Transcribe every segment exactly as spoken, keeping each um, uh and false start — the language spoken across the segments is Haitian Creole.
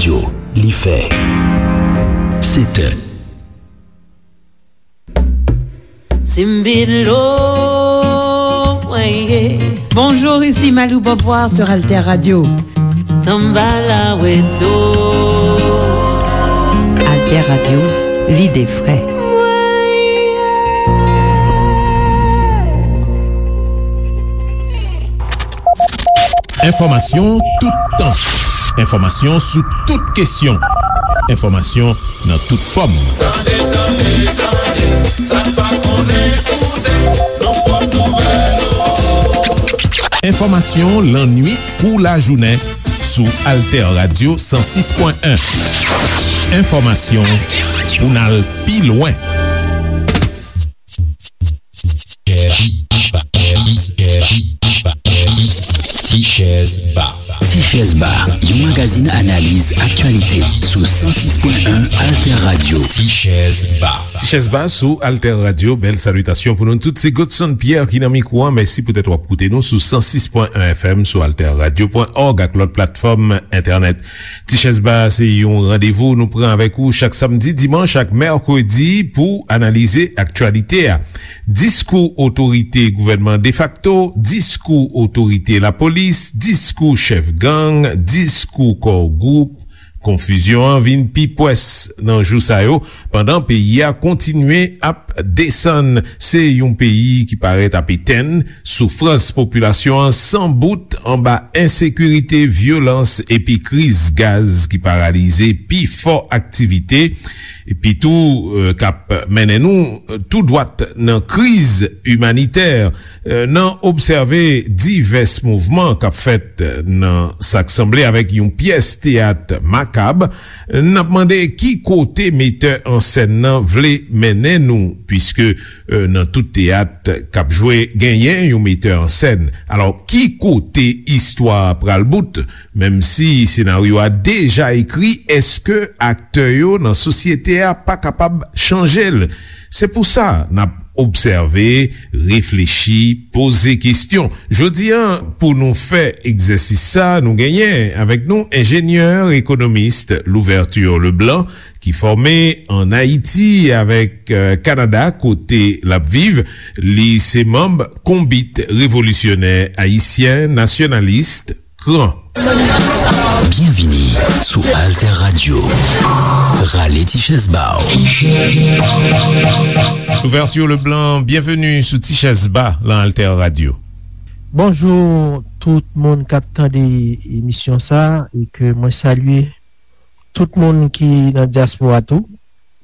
Yo, li fè sèt è. Simbilo, weye. Bonjour, ici Malou Beauvoir sur Alter Radio. Tambala weto. Alter Radio, l'idée vraie. Enfòmasyon toutan. Enfòmasyon sou tout kesyon. Enfòmasyon nan tout fòm. Tande, tande, tande, sa n pa konnen koute, nan pòt nouvèl yo. Enfòmasyon lannwit kou lajounen sou Alter Radio san sis pwen en. Enfòmasyon pou n al pi lwen. Ti Chèz Ba. Ti Chèz Ba, yon magazin analiz aktyalite sou san sis pwen en Alter Radio. Ti Chèz Ba. Ti Chèz Ba sou Alter Radio. Bèl salitasyon pou nou tout. Se Godson Pierre ki nan mikwo a. Mèsi poutèt w ap koute nou sou san sis pwen en F M, sou alter radio pwen òg ak lòt platfòm entènèt. Ti Chèz Ba se yon randevou nou pran avèk ou chak samdi, dimanch ak mèkredi pou analize aktyalite a. Diskou otorite gouvènman defakto, diskou otorite lapolis, diskou chèf gang, diskou kò gwoup. Konfizyon an vin pi pwès nan jou sa yo, pandan peyi a kontinye ap desann. Se yon peyi ki parèt ap etenn, soufrans popilasyon an san bout anba ensekirite, vyolans epi kriz gaz ki paralize pifò aktivite, epi tou, e, k ap mennen nou tou dwat nan kriz imanitè. E, nan obsève divès mouvman k ap fèt nan sa k sanble avèk yon pyès teyat makab, n ap mande ki kote metè an sèn nan vle mennen nou, piske, e, nan tout teyat k ap jwe, genyen yon metè an sèn. Alò, ki kote istwa a pral bout? Menm si senaryo a deja ekri, èske aktè yo nan sosyete a pa kapab chanje l? Se pou sa n ap obsève, reflechi, poze kesyon. Jodi a, pou nou fè egzèsis sa, nou genyen avèk nou enjenyè, ekonomis Louverture Leblanc, ki fòme ann Ayiti avèk, e, Kanada, kote l ap viv. Li se manm Konbit Revolisyonè Ayisyen Nasyonalis, kran. Byenvini sou Alter Radio. Rale ti chèz ba w. Louverture Leblanc, byenveni sou Ti Chèz Ba lan Alter Radio. Bonjou tout moun k ap tande emisyon sa, e ke mwen salye tout moun ki nan dyaspora tou,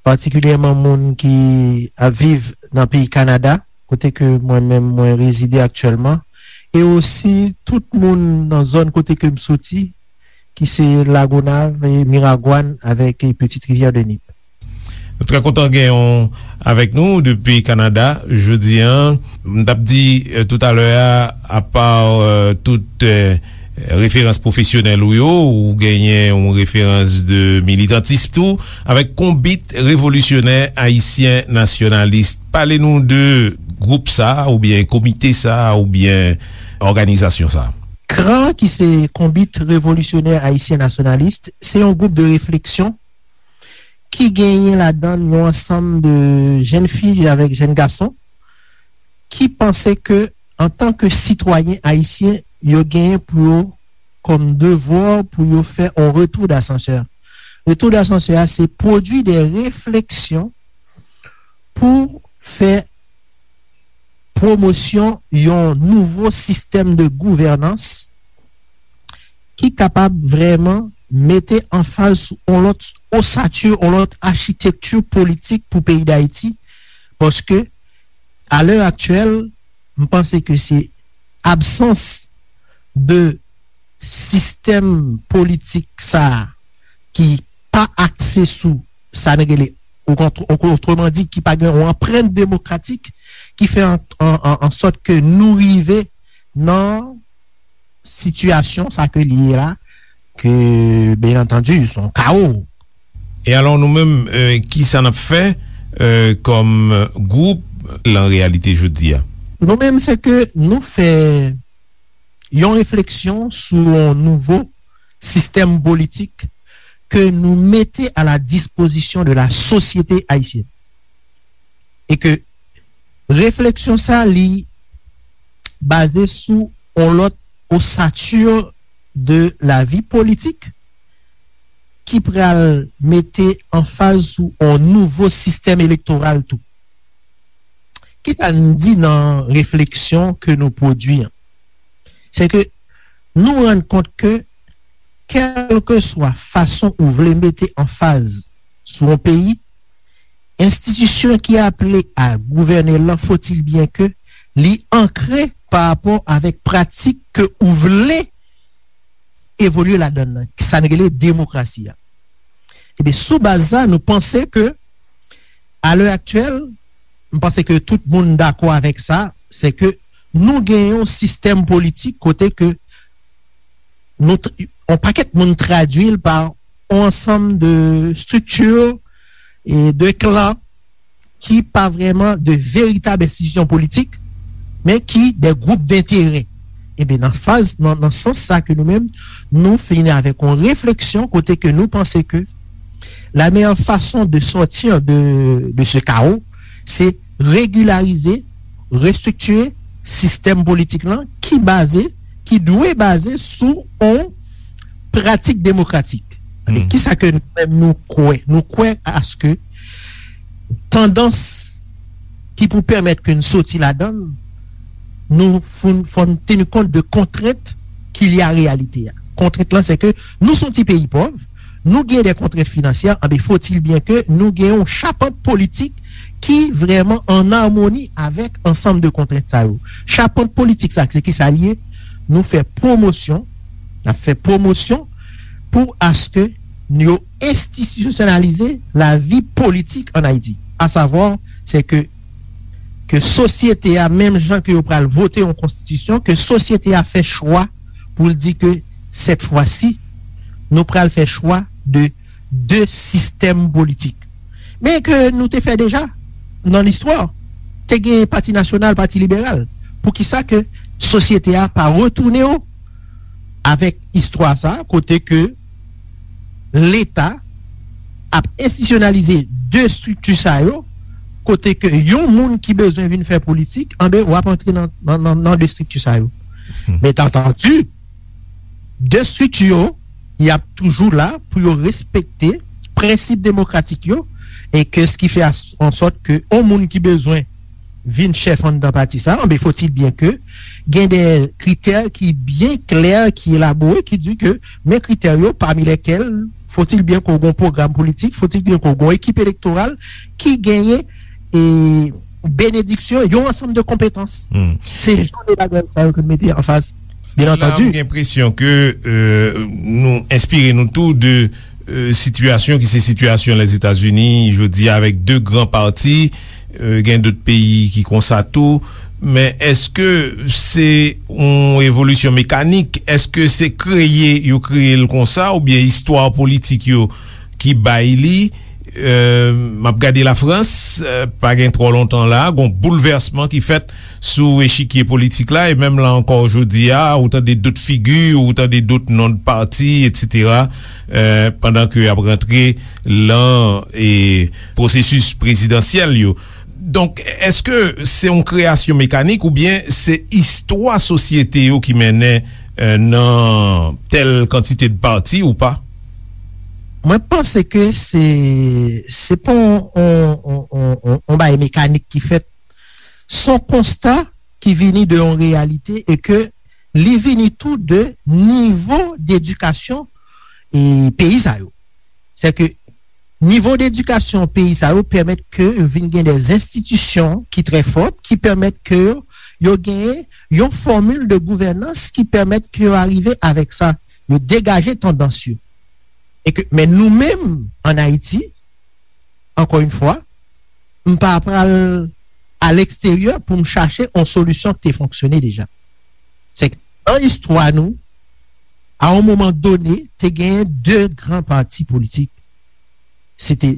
patikilyèman moun ki ap viv nan peyi Kanada, kote ke mwen menm mwen rezide aktyèlman, e osi tout moun nan zòn kote ke m soti, ki se Lagonav, e Miragwàn avèk, e Petite Rivière de Nip. Nou trè kontan gen w avèk nou depi Kanada jodi a. M t ap di, e, toutalè a, apa, e, tout, e, referans pwofesyonèl ou yo, ou genyen yon referans de militantis tou, avèk Konbit Revolisyonè Ayisyen Nasyonalis. Pale nou de gwoup sa a, oubyen komite sa a, oubyen òganizasyon sa a. Kran, ki se Konbit Revolisyonè Ayisyen Nasyonalis, se yon gwoup de refleksyon ki genyen ladan l yon ansanm de jèn fi avèk jèn gason ki panse ke, antanke sitwayen ayisyen, yo genyen pou yo, kòm devwa, pou yo fè yon retou dasansè. Retou dasansè a, se pwodui de refleksyon pou fè pwomosyon yon nouvo sistèm de gouvènans ki kapab vrèman mete anfaz sou yon lòt osati, yon lòt achitekti politik pou peyi Dayiti, paske, a lè aktyèl, m panse ke se absans de sistèm politik sa a ki pa akse sou sa n rele, otreman di, ki pa gen yon anprent demokratik, ki fè an, an, an, an sòt ke nou rive nan sitiyasyon sa ke li ye la, ke, byen antandi, se yon kawo. E alò, nou menm, e, kisa n ap fè, e, kòm gwoup lan reyalite jodi a? Nou menm, se ke nou fè yon refleksyon sou yon nouvo sistèm politik ke nou mete à la disposition de la société haïtienne. E ke refleksyon sa, li baze sou yon lòt osatur de la vie politique ki pral mete anfaz sou yon nouvo sistèm elektoral tou. Kisa n di nan refleksyon ke nou pwodui an? Se ke nou rann kont ke, kèlkeswa fason ou vle mete anfaz sou yon peyi, enstitisyon ki aple a gouvène l lan, faut-il bien que li ankre pa rapò avèk pratik ke ou vle evolye ladan l lan, sa n rele demokrasi a. Ebyen, sou baz sa, nou panse ke, à l'heure actuelle, m panse ke tout moun dakò avèk sa, se ke nou gen yon sistèm politik kote ke nou, yon pakèt moun tradui l pa yon ansanm de strikti e de klan ki pa vrèman de veritab enstitisyon politik, men ki de gwoup denterè. Ebyen, nan faz, nan, nan sans sa ke nou menm, nou vini avèk yon refleksyon kote ke nou panse ke la meilleure façon de sortir de, de ce chaos, se regilarize, restriktire sistèm politik lan ki baze, ki dwe baze sou yon pratik demokratik. Hmm. Kisa ke nou menm nou kwè? Nou kwè aske tandans ki pou pèmèt ke n soti ladan l, nou fò, fò n teni kont de kontrent ki lye a reyalite a. Kontrent lan, se ke nou se yon ti peyi pòv, nou gen de kontrent finansyè, anben, faut-il bien que nou gen yon chapant politik ki vrèman an amoni avèk ansanm de kontrent sa yo. Chapant politik sa, se ki sa l ye? Nou fè pwomosyon, n ap fè pwomosyon pou aske yo enstitisyonalize lavi politik ann Ayiti. Asavwa, se ke, ke sosyete a, menm jan ke yo pral vote yon konstitisyon, ke sosyete a fè chwa pou l di ke, cette fois-ci, nou pral fè chwa de de sistèm politik. Men ke nou te fè deja nan listwa, te gen Pati Nasyonal, Pati Liberal. Poukisa ke sosyete a pa retounen yo avèk istwa sa, kote ke Leta ap enstitisyonalize de estrikti sa yo, kote ke yon moun ki bezwen vin fè politik, anben, w ap antre nan, nan, nan, nan de estrikti sa yo. Hmm. Men antandi, de estrikti yo, y ap toujou la pou yo respekte prensip demokratik yo, e ke s ki fè as-, an sòt ke yon moun ki bezwen vin chèf anndan pati sa, anben, faut-il bien que gen de kritè ki byen klè, ki elabore, ki di ke men kritè yo, parmi lesquels, faut-il bien que w gen yon pwogram politik, faut-il bien que w gen yon ekip elektoral ki genyen e benediksyon, yon ansanm de konpetans. Hmm. Se jan de bagay sa yo ke n mete anfas, byen antandi. La, m gen enpresyon ke, euh, nou enspire nou tou de, euh, sitiyasyon ki se sitiyasyon Lèzetazini jodi a, avèk de gran pati, euh, gen dòt peyi ki konsa tou. Men èske se yon evolisyon mekanik? Èske se kreye yo kreye l konsa, oubyen istwa politik yo ki bay li? Euh, m ap gade Lafrans, euh, pa gen twò lontan la, gon boulvèsman ki fèt sou echikye politik la, e menm la ankò jodi a, ou tande dòt figi, ou tande dòt non de pati, etsetera, euh, pandan ke y ap rantre lan, e, pwosesis prezidansyèl yo. Donk, èske se yon kreyasyon mekanik oubyen se istwa sosyete yo ki mennen, euh, nan tèl kantite de pati ou pa? Mwen panse ke se, se pa yon, yon, yon, yon, yon, yon bagay mekanik ki fèt. Se yon konsta ki vini de yon reyalite e ke li vini tou de nivo dedikasyon e peyi sa yo. Se ke nivo dedikasyon peyi sa yo pèmèt ke yo vin gen de enstitisyon ki trè fòt, ki pèmèt ke yo, yo genyen yon fòmil de gouvènans ki pèmèt ke yo arive avèk sa, yo degaje tandans yo. E ke, men nou menm, ann Ayiti, ankò yon fwa, m pa pral a leksteryè pou m chache yon solisyon ki te fonksyone deja. Se ke nan istwa nou, a yon moman done, te genyen de gran pati politik. Se te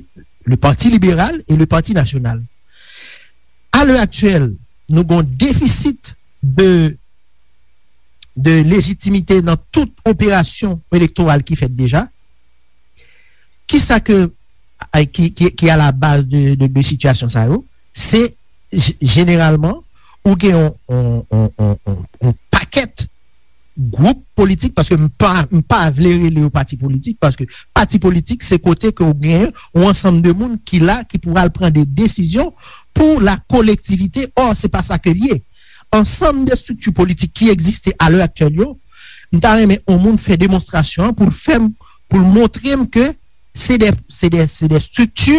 le Parti Libéral et le Parti National. A lè aktyèl, nou gen yon defisit de, de lejitimite nan tout operasyon elektoral ki fèt deja. Kisa ke, ki, ki, ki a la baz de, de, de sitiyasyon sa yo? Se j-, jeneralman, ou gen yon, yon, yon, yon, yon, yon pakèt gwoup politik, paske m pa, m pa vle rele yo pati politik, paske pati politik, se kote ke ou gen yon ansanm de moun ki la, ki pou al pran de desizyon pou la kolektivite. Or, se pa sa ke l ye. Ansanm de estrikti politik ki egziste a lè aktyèl yo, m ta renmen yon moun fè demonstrasyon an pou l fè m, pou l montre m ke se de, se de, se de estrikti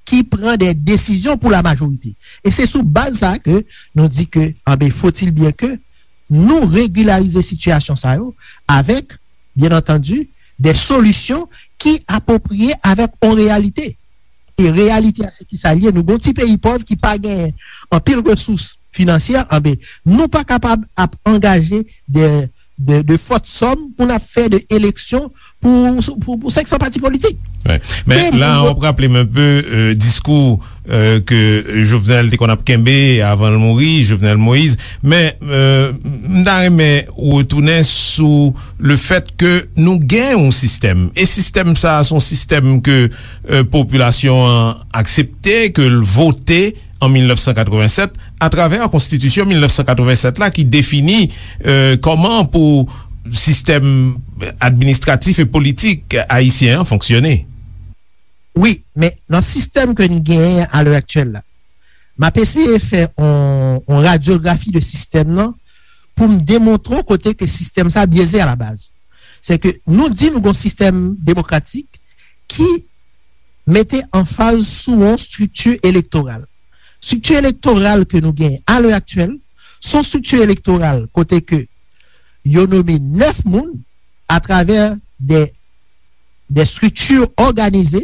ki pran de desizyon pou la majorite. E se sou baz sa ke nou di ke, anben, faut-il bien que nou regilarize sitiyasyon sa yo avèk, byen antandi, de solisyon ki apwopriye avèk yon reyalite. E reyalite a, se ki sa l ye? Nou gon ti peyi pòv ki pa gen anpil resous finansyè, anben, nou pa kapab ap angaje de, de, de fòt sòm pou n ap fè de eleksyon pou, pou, pou senk san pati politik. Wi. Men la, w ap raple m enpe, euh, diskou, euh, ke Jovenel te konn ap kenbe avan l mouri, Jovenel Moïse. Men, euh, m ta renmen retounen sou le fèt ke nou gen yon sistèm. E sistèm sa a, se yon sistèm ke, euh, popilasyon an aksepte, ke l vote an mil nèf san katrevennsèt, atravè konstitisyon mil nèf san katrevennsèt la ki defini, euh, kòman pou sistèm administratif e politik ayisyen an fonksyone. Wi, men nan sistèm ke n genyen a lè aktyèl la, m ap eseye fè yon, yon radyografi de sistèm nan pou m demontre w kote ke sistèm sa byeze a la baz. Se ke nou di nou gon sistèm demokratik ki mete anfaz sou yon estrikti elektoral. Estrikti elektoral ke nou genyen a lè aktyèl, se yon estrikti elektoral kote ke yo nome nèf moun atravè de, de estrikti òganize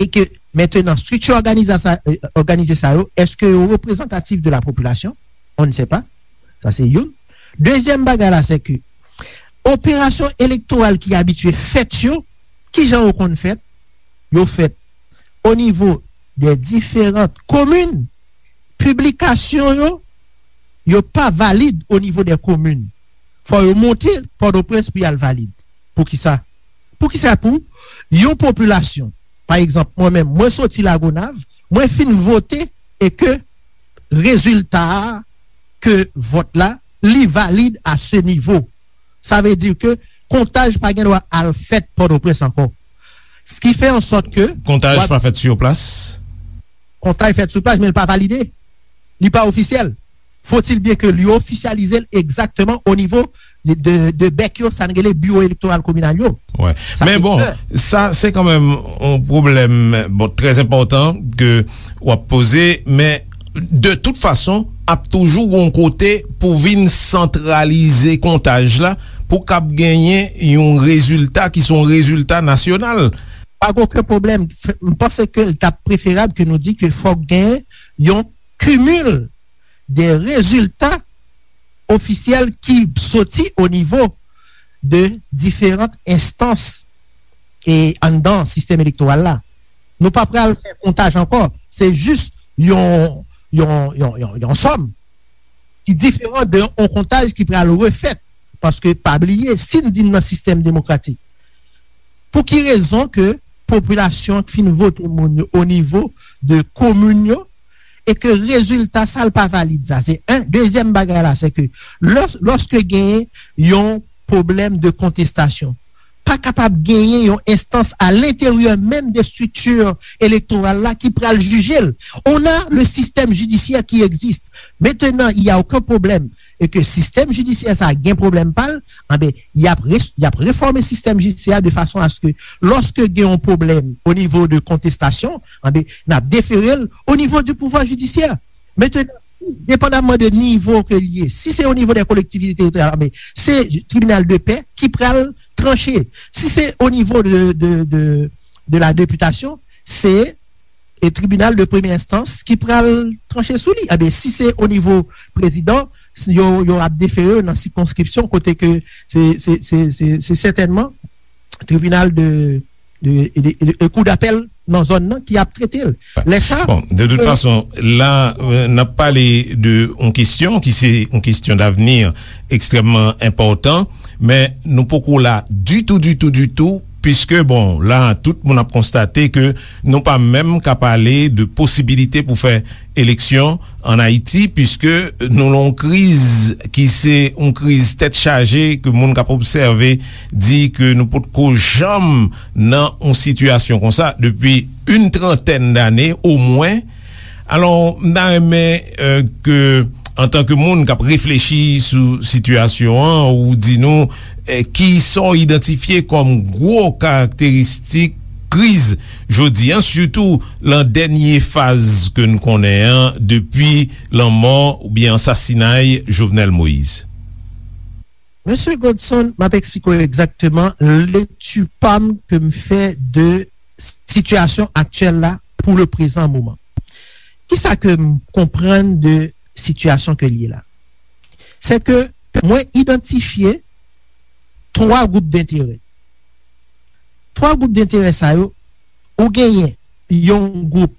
e ke mentenan estrikti òganiza sa, euh, òganize sa yo, èske yo reprezantatif de la popilasyon? On ne sait pas. Sa se youn. Dezyèm bagay la, se ke operasyon elektoral ki abitye fèt yo, kijan yo konn fèt? Yo fèt o nivo de diferan komin. Piblikasyon yo, yo pa valid o nivo de komin. Fò yo monte Pòtoprens pou y al valid. Poukisa? Poukisa pou yon popilasyon, pa egzanp, mwen menm, mwen soti Lagonav, mwen fin vote e ke rezilta a, ke vòt la, li valid a se nivo. Sa vle di ke kontaj pa gen dwa al fèt Pòtoprens ankò. Sa ki fè an sòt ke kontaj pa fèt sou plas. Kontaj fèt sou plas, men l pa valide. Li pa ofisyèl. Faut-il bien que li ofisyalize l egzakteman o nivo de, de, de bèk yo, sa n rele biwo elektoral kominal yo. Wi. Men bon, sa se kanmenm yon pwoblèm, bon, trè enpòtan ke w ap poze, men de tout fason, ap toujou gon kote pou vin santralize kontaj la, pou k ap genyen yon rezilta ki se yon rezilta nasyonal. Pa gen okenn pwoblèm. M panse ke l t ap preferab ke nou di ke fòk gen yon kimil de rezilta ofisyèl ki soti o nivo de diferan enstans e anndan sistèm elektoral la. Nou pa pral fè kontaj ankò. Se jis yon, yon, yon, yon, yon sòm ki diferan de yon kontaj ki pral refèt. Paske, pa bliye, si n di n nan sistèm demokratik, pou ki rezon ke popilasyon fin vote moun yo o nivo de komin yo e ke rezilta sa l pa valid? Sa se en. Dezyèm bagay la, se ke lè, lòske genyen yon pwoblèm de kontestasyon, pa kapab genyen yon enstans a lenteryè menm de estrikti elektoral la ki pral jije l. On a le système judiciaire qui existe. Maintenant, il y a aucun problème e ke sistèm jidisyè sa gen pwoblèm pa l, anben, y ap res-, y ap refòme sistèm jidisyè a de fason a se ke lòske gen yon pwoblèm o nivo de kontestasyon, anben, n ap defere l o nivo du pouvoir judiciaire. Maintenant, si, depandamman de nivo ke l ye, si se o nivo de kolektivite teritoryal, anben, se tribinal de pè ki pral tranche. Si se o nivo de, de, de, de la députation, se e tribinal de premye enstans ki pral tranche sou li. Enben, si se o nivo prezidan, yo, yo ap defere nan sikonskripsyon kote ke se, se, se, se, se sètènman tribinal de, de, de, de, de kou dapèl nan zòn nan ki ap trete l. Lè sa, bon, de tout fason, la, euh, n ap pale de yon kesyon ki se yon kesyon davni ekstrèmman enpòtan, men nou poko la ditou, ditou, ditou Piske, bon, la, tout moun ap konstate ke nou pa menm ka pale de posibilite pou fè eleksyon ann Ayiti, piske nou nan yon kriz ki se yon kriz tèt chaje, ke moun k ap obsève di ke nou potko janm nan yon sitiyasyon konsa depi yon trantèn dane omwen. Alò, m ta renmen, eh, ke, antanke moun k ap reflechi sou sitiyasyon an, ou di nou, eh, kisa w idantifye kòm gwo karakteristik kriz jodi a, sitou lan dènye faz ke n konnen an, depi lanmò oubyen ansasinay Jovenel Moïse. Mesye Godson, m ap eksplike w egzakteman lekti pa m ke m fè de sitiyasyon aktyèl la pou le prezan moman. Kisa ke m konprann de sitiyasyon ke l ye la? Se ke mwen idantifye twa gwoup denterè. Twa gwoup denterè sa yo, ou genyen yon gwoup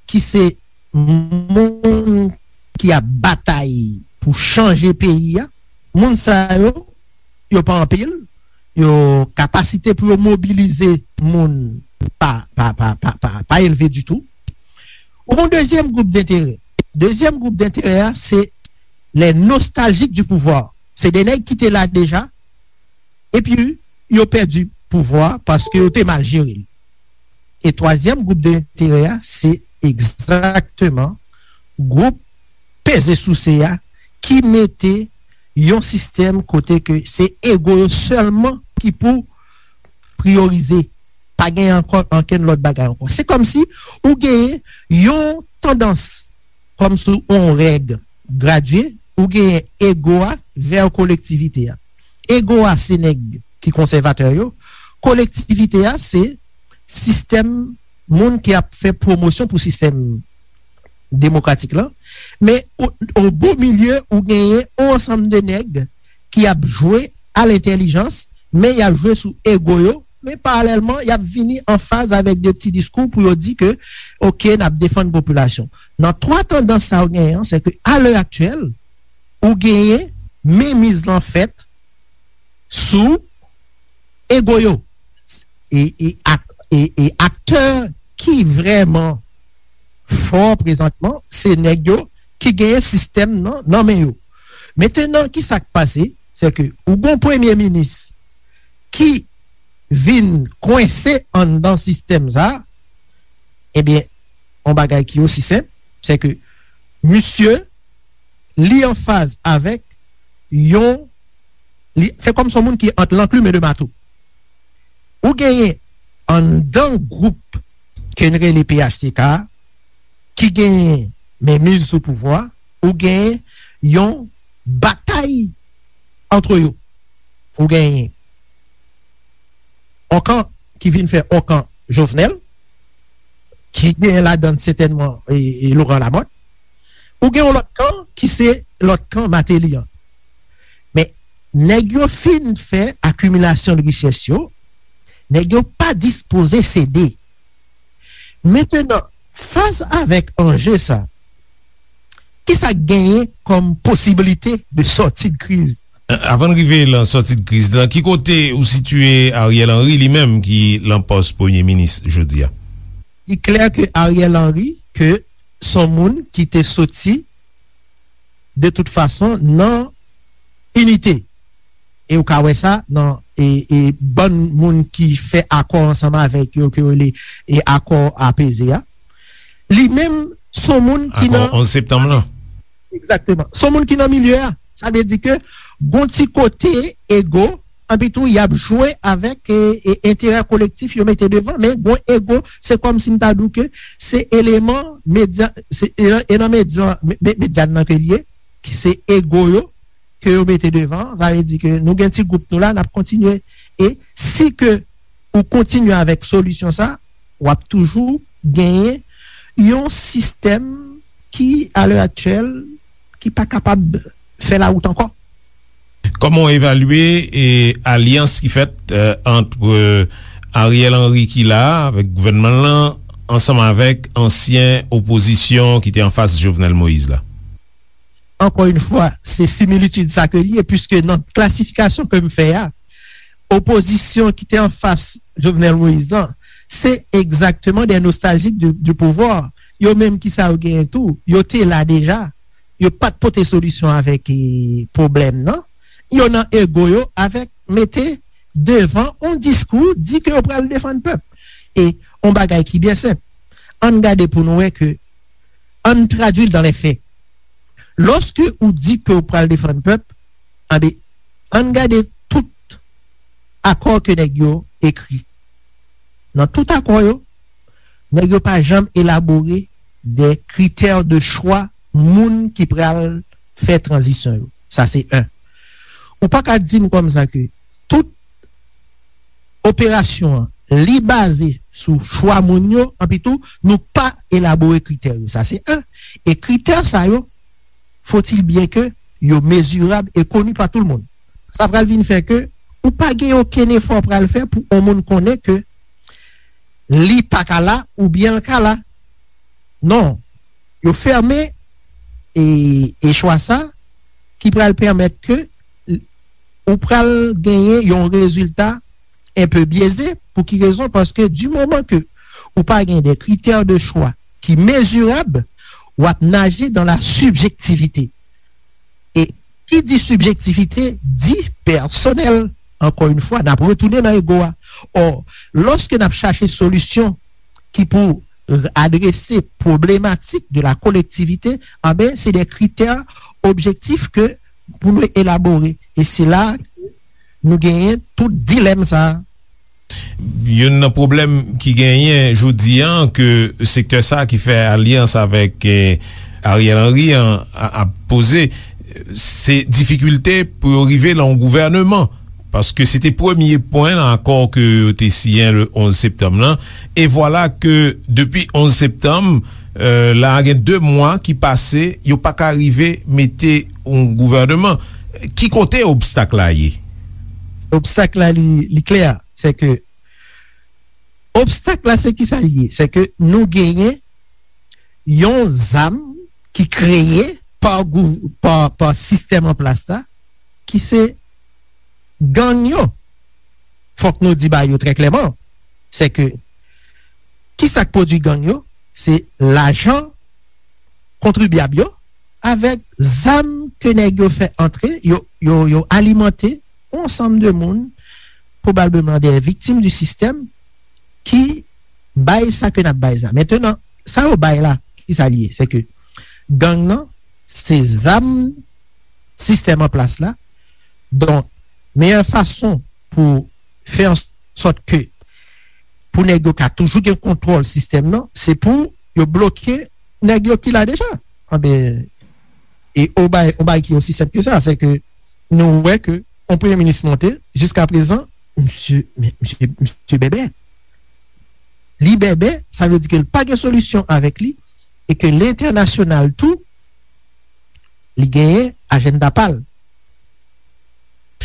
ki se moun ki ap batay pou chanje peyi a. Moun sa yo, yo pa anpil, yo, kapasite pou yo mobilize moun pa, pa, pa, pa, pa, pa elve ditou. Ou gon dezyèm gwoup denterè. Dezyèm gwoup denterè a, se les nostalgiques du pouvoir. Se de nèg ki te la deja, epi yo pèdi pouvwa paske yo te mal jere l. E twazyèm gwoup denterè a, se egzakteman gwoup peze souse a ki mete yon sistèm kote ke se ego yo sèlman ki pou priyorize. Pa gen ankò ankenn lòt bagay ankò. Se kòmsi ou genyen yon tandans, kòmsi yon règ gradye, ou genyen ego a vè kolektivite a. Ego a se nèg ki konsèvatè yo, kolektivite a se sistèm moun ki ap fè pwomosyon pou sistèm demokratik lan, men o, o bo milye ou genyen yon ansanm de nèg ki ap jwe a lentèlijans, men y ap jwe sou ego yo, men paralèlman, y ap vini an faz avèk de ti diskou pou yo di ke, oke, n ap defann popilasyon. Nan twa tandans sa yo genyen an, se ke a lè aktyèl, ou genyen menmiz lan fèt sou ego yo. E, e, ak, e, e aktè ki vrèman fò prezantman, se nèg yo ki genyen sistèm nan, nan men yo. Mentenan, kisa k pase? Se ke ou gon premye minis ki vin kwense anndan sistèm sa, ebyen, yon bagay ki osi senp, se ke misye, li an faz avèk yon, li, se kòm se yon moun ki ant lanklim e de mato. Ou genyen anndan gwoup ke n rele P H T K a, ki genyen menmiz sou pouvwa, ou genyen yon batay antre yo. Ou genyen yon kan ki vin fè yon kan Jovenel, ki genyen ladann sètènman e, e Laurent Lamothe. Ou gen yon lòt kan ki se lòt kan Martelly an. Men, nèg yo fin fè akimilasyon de richès yo, nèg yo pa dispoze sede. Mentenan, fas avèk anje sa, kisa k genyen kòm posiblite de sòti de kriz? Avan n rive lan sòti de kriz lan, ki kote ou sitiye Ariel Henry, li menm ki lan pòs premye minis jodi a? Li klè ke Ariel Henry, ke s on moun ki te soti de tout fason nan inite. E ou ka wè sa nan, e, e bann moun ki fè akò ansanm avèk yo, ke yo rele, e, akò apeze a. Li menm, s on moun ki nan, akò onz septanm lan. Egzakteman. S on moun ki nan milye a. Sa vle di ke gon ti kote ego, anpi tou y ap jwe avèk, e, e, enterè kolektif yo mete devan, men gon ego, se kòmsi m ta di w ke se eleman medya, se, e, e nan medya, me, me, medya nan ke l ye, ki se ego yo, ke yo mete devan, sa vle di ke nou gen ti gwoup nou la, n ap kontinye. E si ke ou kontinye avèk solisyon sa, w ap toujou genyen yon sistèm ki, a lè aktyèl, ki pa kapab fè lawout ankò. Kòman w evalye, e, alyans ki fèt, e, ant, e, Ariel Henry ki la a, avèk gouvènman l lan, ansanm avèk ansyen opozisyon ki te anfas Jovenel Moïse la? Ankò yon fwa, se similitid sa ke l ye, piske nan klasifikasyon ke m fè a, Opozisyon ki te anfas Jovenel Moïse lan, se egzakteman de nostaljik du, du pouvoir. Yo menm ki sa yo genyen tou, yo te la deja. Yo pa t pote solisyon avèk eh, pwoblèm nan. Yo nan ego yo avèk mete devan yon diskou, di ke yo pral defann pèp. E yon bagay ki byen senp. Ann gade pou nou wè ke, ann tradui l dans les faits. Lòske ou di ke ou pral defann pèp, anben, ann gade tout akò ke nèg yo ekri. Nan tout akò yo, nèg yo pa janm elabore de critères de choix moun ki pral fè tranzisyon yo. Sa se en. Ou pa ka di m kòmsa ke tout operasyon an, li baze sou chwa moun yo, anpi tou, nou pa elabore kritè yo. Sa se en. E kritè sa yo, faut-il bien que yo mezirab e koni pa tout moun. Sa pral vin fè ke ou pa gen okenn efò pral fè pou yon moun konnen ke li pa ka la oubyen l ka la. Non, yo fèmen e, e chwa sa ki pral pèmèt ke ou pral genyen yon rezilta enpe byeze. Pou ki rezon? Paske di moman ke ou pa gen de critères de choix ki mezirab, w ap naje dans la subjectivité. E ki di subjectivité, di pèsonèl. Ankò yon fwa, n ap retounen nan ego a. Ò, lòske n ap chache solisyon ki pou adrese pwoblematik de la kolektivite, anben, se de kritè objektif ke pou nou elabore. E se la nou genyen tout dilèm sa a. Youn nan pwoblèm ki genyen jodi an ke sektè sa a ki fè alyans avèk eh, Ariel Henry an ap poze, se difikilte pou yo rive nan yon gouvèneman. Paske se te premye pwen nan akò ke yo te siyen le onz septanm lan. E vwala ke depi onz septanm, la gen de mwa ki pase, yo pa ka rive mete yon gouvèneman. Ki kote obstak la ye? Obstak la li, li klè, se ke obstak la se ki sa l ye? Se ke nou genyen yon zam ki kreye pa, pa, pa sistèm an plas la, ki se gang yo. Fòk nou di bagay yo trè klèman. Se ke ki sa k pwodui gang yo? Se lajan kontribyab yo avèk zam ke nèg yo fè antre, yo, yo, yo alimante yon ansanm de moun, pwobableman de viktim di sistèm, ki bay sa ke n ap bay sa. Mentenan, sa yo bay la, ki sa l ye? Se ke gang nan, se zam sistèm an plas la. Donk, meyè fason pou fè an sòt ke pou nèg yo ka toujou gen kontwòl sistèm nan, se pou yo bloke nèg yo ki la deja. Anben, e o bay, o bay ki osi senp ke sa, se ke nou wè ke yon premye minis monte, jiska prezan, misye, misye, misye bèbè. Li bèbè, sa vle di ke l pa gen solisyon avèk li, e ke lentènasyonal tou, li genyen ajanda pa l.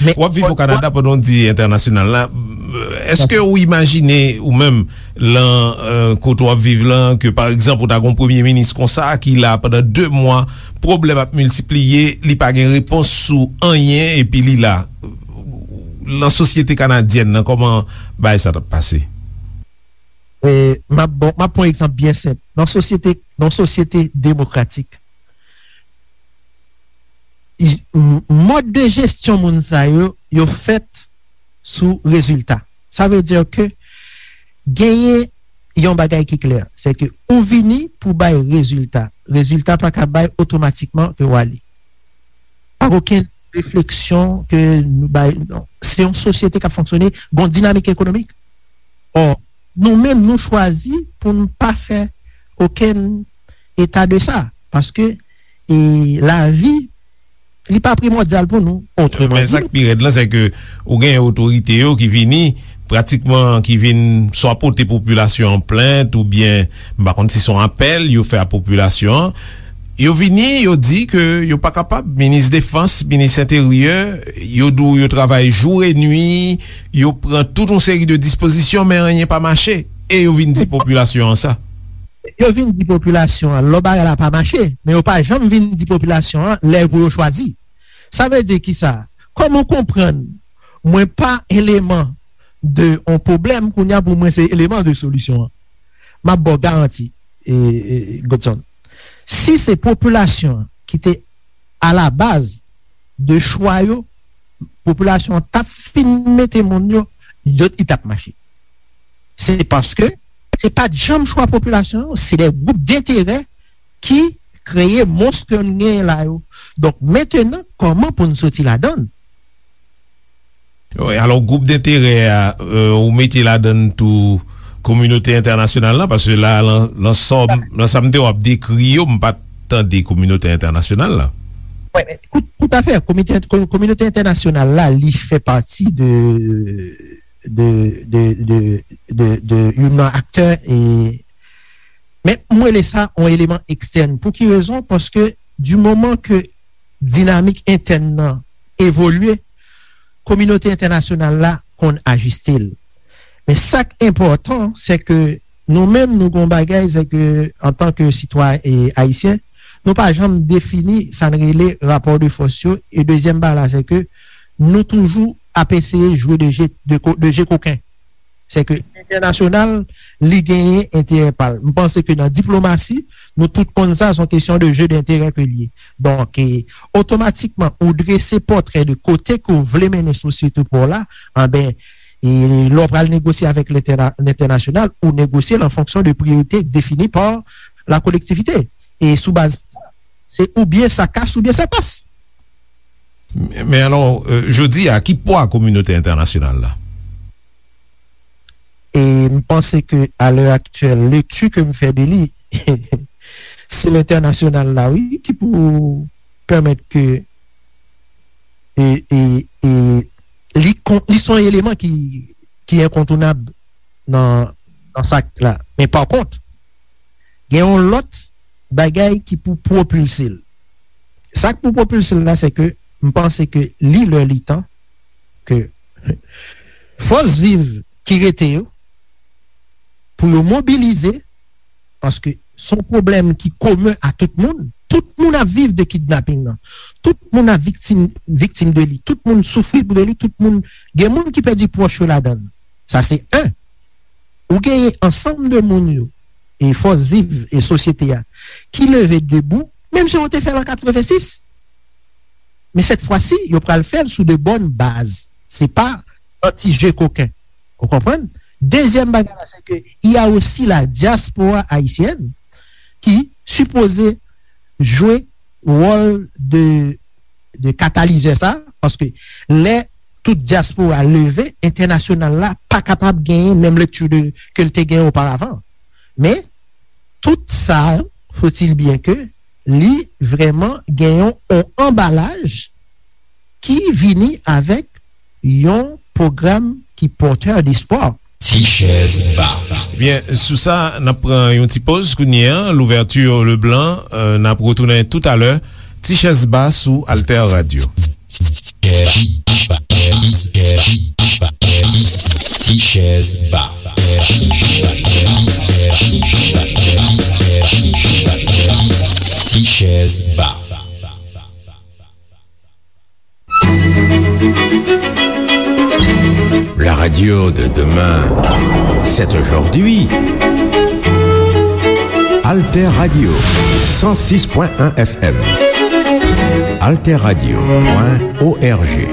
W ap viv o Kanada pandan w di entènasyonal la. Èske ou imajine ou menm lan kote w ap viv lan ke pa egzanp ou ta gen yon premye minis konsa ki la pandan de mwa, pwoblèm ap miltipliye, li pa gen repons sou anyen epi li la? Lan sosyete kanadyèn nan, kòman bagay sa t ap pase? M ap bon, m ap pran egzanp byen senp. Nan sosyete, nan sosyete demokratik, mòd de jesyon moun sa yo, yo fèt sou rezilta. Sa vle di ke genyen yon bagay ki klè, se ke ou vini pou bay rezilta. Rezilta pa ka bay otomatikman ke w ale. Pa okenn refleksyon ke nou bay, non. Se yon sosyete k ap fonksyone, gon dinamik ekonomik. Ò, nou menm nou chwazi pou n pa fè okenn eta de sa, paske e, lavi li pa primòdyal pou nou. Otreman di, men sa k pi rèd lan se ke ou gen otorite yo ki vini pratikman ki vin swa pote popilasyon an plent oubyen m pa konn si se yon apèl yo fè a popilasyon an. Yo vini, yo di ke yo pa kapab, minis defans, minis enteryè, yo di w yo travay jou e nwi, yo pran tout yon seri de dispozisyon men anyen pa mache. E yo vin di popilasyon an sa. Yo vin di popilasyon an lò bagay la pa mache, men yo pa janm vin di popilasyon an lè pou yo chwazi. Sa vle di kisa? Kòman w konprann mwen pa eleman de yon pwoblèm, kounye a pou mwen se eleman de solisyon an. M ap ba w garanti, e, e, Godson. Si se popilasyon an ki te alabaz de chwa yo, popilasyon an t ap fin mete moun yo, yo, li t ap mache. Se paske se pa t janm chwa popilasyon an, se de gwoup denterè ki kreye mons ke n genyen la yo. Donk, mentenan, kòman pou n soti ladan l? Wi, alò, gwoup denterè a, euh, ou mete ladan l tou kominote entènasyonal la, paske la, lan, lan sa, lan sa m te w ap dekri yo, m pa t tande kominote entènasyonal la. Wi, men, tout, tout à fait, komite, ko-, kominote entènasyonal la, li fè pati de, de, de, de, de, de youn nan aktè, e, men m rele sa yon eleman ekstèn. Pou ki rezon? Paske di moman ke dinamik entèn nan evolye, kominote entènasyonal la konn ajiste l. Men sa k enpòtan, se ke nou menm, nou gon bagay, se ke antanke sitwayen, e, ayisyen, nou pa janm defini sa n rele rapò de fòs yo. E dezyèm bagay la, se ke nou toujou ap eseye jwe de je, de ko-, de je koken. Se ke entènasyonal, li genyen enterè pa l. M panse ke nan diplomasi, nou tout konn sa, se yon kesyon de je denterè ke l ye. Donk, e, otomatikman, ou drese pòtrè de kote ke w vle mennen sosyete pa w la, anben, e lè w pral negosye avèk lentèna-, lentènasyonal, ou negosye l an fonksyon de priyorite defini pa la kolektivite. E sou baz sa, se oubyen sa kas, oubyen sa pas. Men, men alò, euh, jodi a, ki pwa kominote entènasyonal la? E m panse ke, a lè aktyèl, lekti ke m fè de li, se lentènasyonal la, wi, ki pou pèmèt ke, e, e, e, li kon-, li se yon eleman ki, ki enkontounab nan, nan sa k la. Men pa kont, gen yon lòt bagay ki pou pwopilse l. Sa k pou pwopilse l la, se ke m panse ke li lè li tan ke fòs viv ki rete yo, pou yo mobilize, paske se yon pwoblèm ki komen a tout moun. Tout moun ap viv de kidnaping nan. Tout moun ap viktim, viktim de li. Tout moun soufri de li. Tout moun, gen moun ki pèdi pwòch yo ladan l. Sa se en. Ou genyen ansanm de moun yo, e fòs viv e sosyete a, ki leve debou, menm jan yo te fè l an katrevensis. Men sèt fwa si, yo pral fè l sou de bòn baz. Se pa an ti je koken. Ou konprann? Dezyèm bagay la, se ke il y a aussi la diaspora haïtienne ki sipoze jwe wòl de, de katalizè sa, paske lè tout dyaspora leve, entènasyonal la pa kapab genyen menm lekti de, ke l te genyen oparavan. Men, tout sa, faut-il bien que, li vrèman gen yon, yon anbalaj ki vini avèk yon pwogram ki pòtè despwa. Ti chèz ba. Ebyen, sou sa, n ap pran yon ti poz kounye a. Louverture Leblanc, euh, n ap retounen toutalè. Ti chèz ba sou Alter Radio. Ti chèz ba. Ti chèz ba. La radio de demain, c'est aujourd'hui. Alter Radio, cent six point un F M. Alter Radio point O R G.